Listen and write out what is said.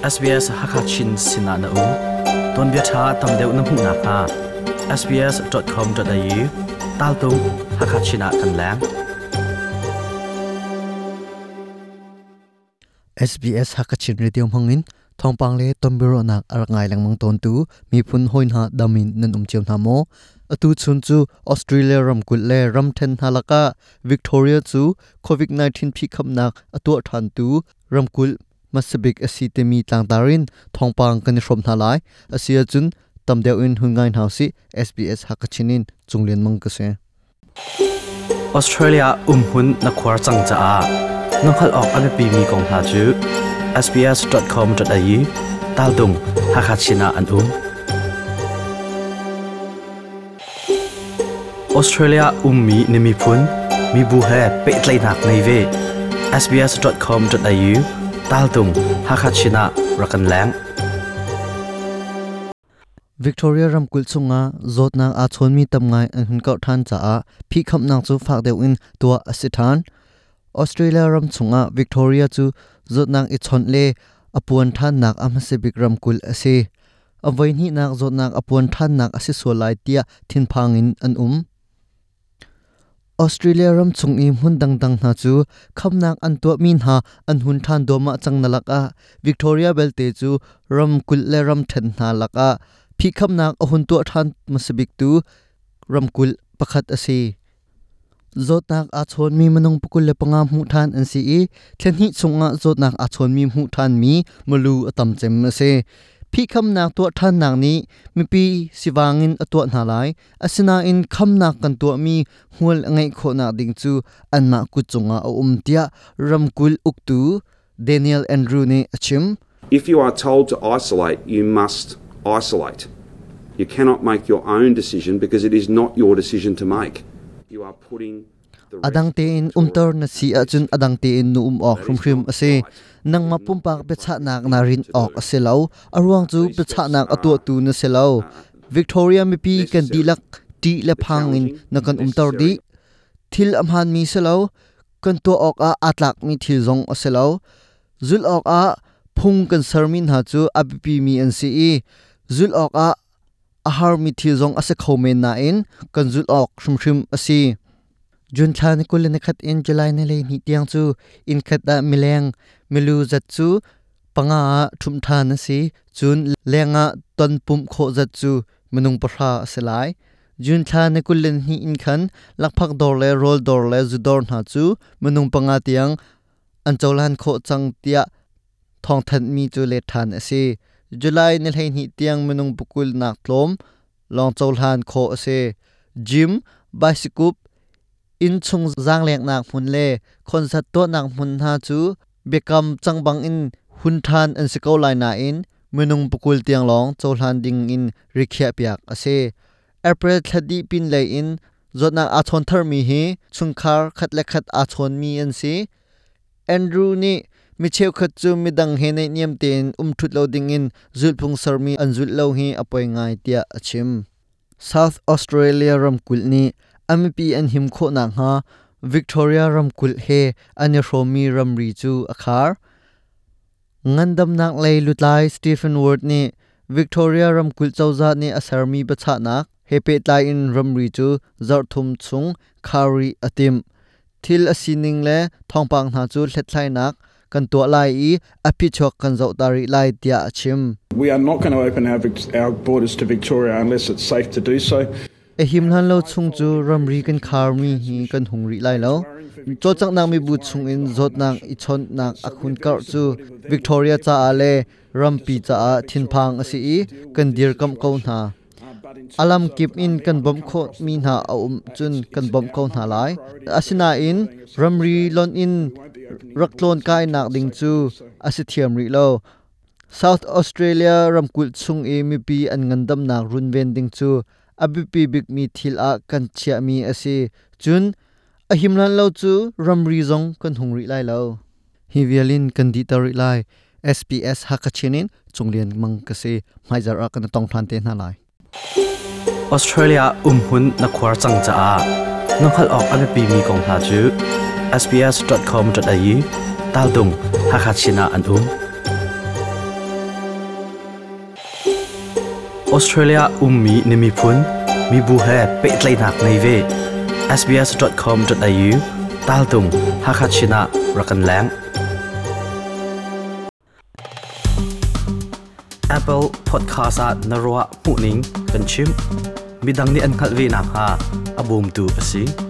SBS Hakachin sinah na um. Tuanbia ṭha tam deuh na hmuh nakhnga sbs.com.au taltung Hakachin ah kan leng. SBS Hakachin Radio hmangin thawngpang le tonbiaruahnak a rak ngai lengmang tawntu miphun hawi hna dam in nan um cio hna maw? Atu chun cu Australia ramkulh le ramṭhen hna lakah Victoria cu COVID-19 phihkhamnak a tuah ṭhantu ramkulh hmasabik a si timi tlangtar in thawngpang kan i hrawm hna lai. Asi ahcun tam deuh in hun ngai hna usih. SBS Hakachin in Cunglian Mang ka si. Australia umhmun na khuar cang caah na hngalh awk a biapimi kong hna cu sbs.com.au taltung Hakachin ah an um. Australia ummi na miphun, mibu he pehtlaihnak ngei ve. sbs.com.au taltung Hakachin ah rak kan leng. Victoria ramkulh chungah zawtnak aa chawnmi tam ngai an hun kauh ṭhan caah phihkhamnak cu fak deuh in tuah a si ṭhan. Australia ram chungah Victoria cu zawtnak i chawnh le a puan ṭhannak a hmasa bik ramkulh a si. A voihnihnak zawtnak a puan ṭhannak a si sual lai tiah thinphang in an um. Australia ram chung i hmun dangdang hna cu khamnak an tuahmi hna an hun ṭhan duahmah cang na lakah Victoria belte cu ramkulh le ramṭhen hna lakah phihkhamnak a hun tuah ṭhan hmasabiktu ramkulh pakhat a si. Zawtnak aa chawnmi minung 25 hmuh ṭhan an si i thla hnih chungah zawtnak aa chawnmi hmuh ṭhanmi milu a tam cem a si. Phihkhamnak tuah ṭhannak nih mipi sivang in a tuah hna lai. Asinain khamnak kan tuahmi hmual a ngeih khawhnak ding cu anmah kut cungah a um tiah ramkulh uktu Daniel Andrew nih a chim. If you are told to isolate, you must isolate. You cannot make your own decision because it is not your decision to make. You are putting A dang tein umter na si ahcun a dang tein nu um awk hrimhrim a si. Nangmah pumpak biachahnak naa rinh awk a si lo. A ruang cu biachahnak a tuahtu na si lo. Victoria mipi kan dihlak ṭih le phang in na kan umter dih. Thil a hmaanmi si lo. Kan tuah awkah aa tlakmi thil zong a si lo. Zulh awkah phung kan sermi hna cu a biapimi an si i zulh awkah a harmi thil zong a si kho men nain kan zulh awk hrimhrim a si. June thla ni 21 in July ni 12 tiang cu inn khat ah mileng milu zat cu panga ah ṭhumh ṭhan a si. Cun leng ah ton pumh khawh zat cu minung pahra a si lai. June thla ni 22 in khan lakphak dawr le rawl dawr le zu dawr hna cu minung panga tiang an cohlan khawh cang tiah thawngthanhmi cu let ṭhan a si. July ni 12 tiang minung pakul nak tlawm lawng cohlan khawh a si. Gym, baisikup, innchung zaangleknak hmun le concert tuahnak hmun hna cu biakam cang bangin hun ṭhan an si ko lai nain minung pakul tiang lawng cohlan ding in rikhiahpiak a si. April thla dih pinlei in zawtnak aa chawn tharmi hi chungkhar khat le khat aa chawnmi an si. Andrew nih mi cheukhat cu midang he naihniam tein um ṭhut lo dingin zulhphung sermi an zulh lo hi a poi ngai tiah a chim. South Australia ramkulh nih a mipi an him khawh nakhnga Victoria ramkulh he an i hrawmmi ramri cu a khar. Ngandamnak lei lutlai Stephen Ward nih Victoria ramkulh cozah nih a sermi biachahnak he pehtlai in ramri cu zarhthum chung khar rih a timh. Thil a sining le thawngpang hna cu hlethlainak kan tuah lai i a phichuak kan zoh ta rih lai tiah a chim. We are not going to open our, our borders to Victoria unless it's safe to do so. A him hlan lo chung cu ramri kan kharmi hi kan hung rih lai lo. Cawlcanghnak mibu chungin zawtnak i chawnhnak a hun karh cu Victoria caah le rampi caah thinphang a si i kan dirkamh ko hna. A lamkip in kan bawmh khawhmi hna a um cun kan bawmh ko hna lai. Asinain ramri lonh in rak tlawn-kainak ding cu a si thiam rih lo. South Australia ramkulh chung i mipi an ngandamnak runven ding cu a biapi bikmi thil ah kan chiahmi a si. Cun a him hlan lo cu ramri zong kan hung rih lai lo. Hi vial in kan dihter rih lai. SPS Hakachin in Cunglian Mang ka si. Hmaizarh ah kan i tong ṭhan te hna lai. Australia umhmun na khuar cang caah na hngalh awk a biapimi kong hna cu sbs.com.au taltung Hakachin ah an um. Australia ummi na miphun, mibu he pehtlaihnak ngei ve. sbs.com.au taltung Hakha ah rak kan leng. Apple Podcast ah na ruah hmuhning kan chim. Midang nih an hngalh ve nakhnga a bawmtu a si.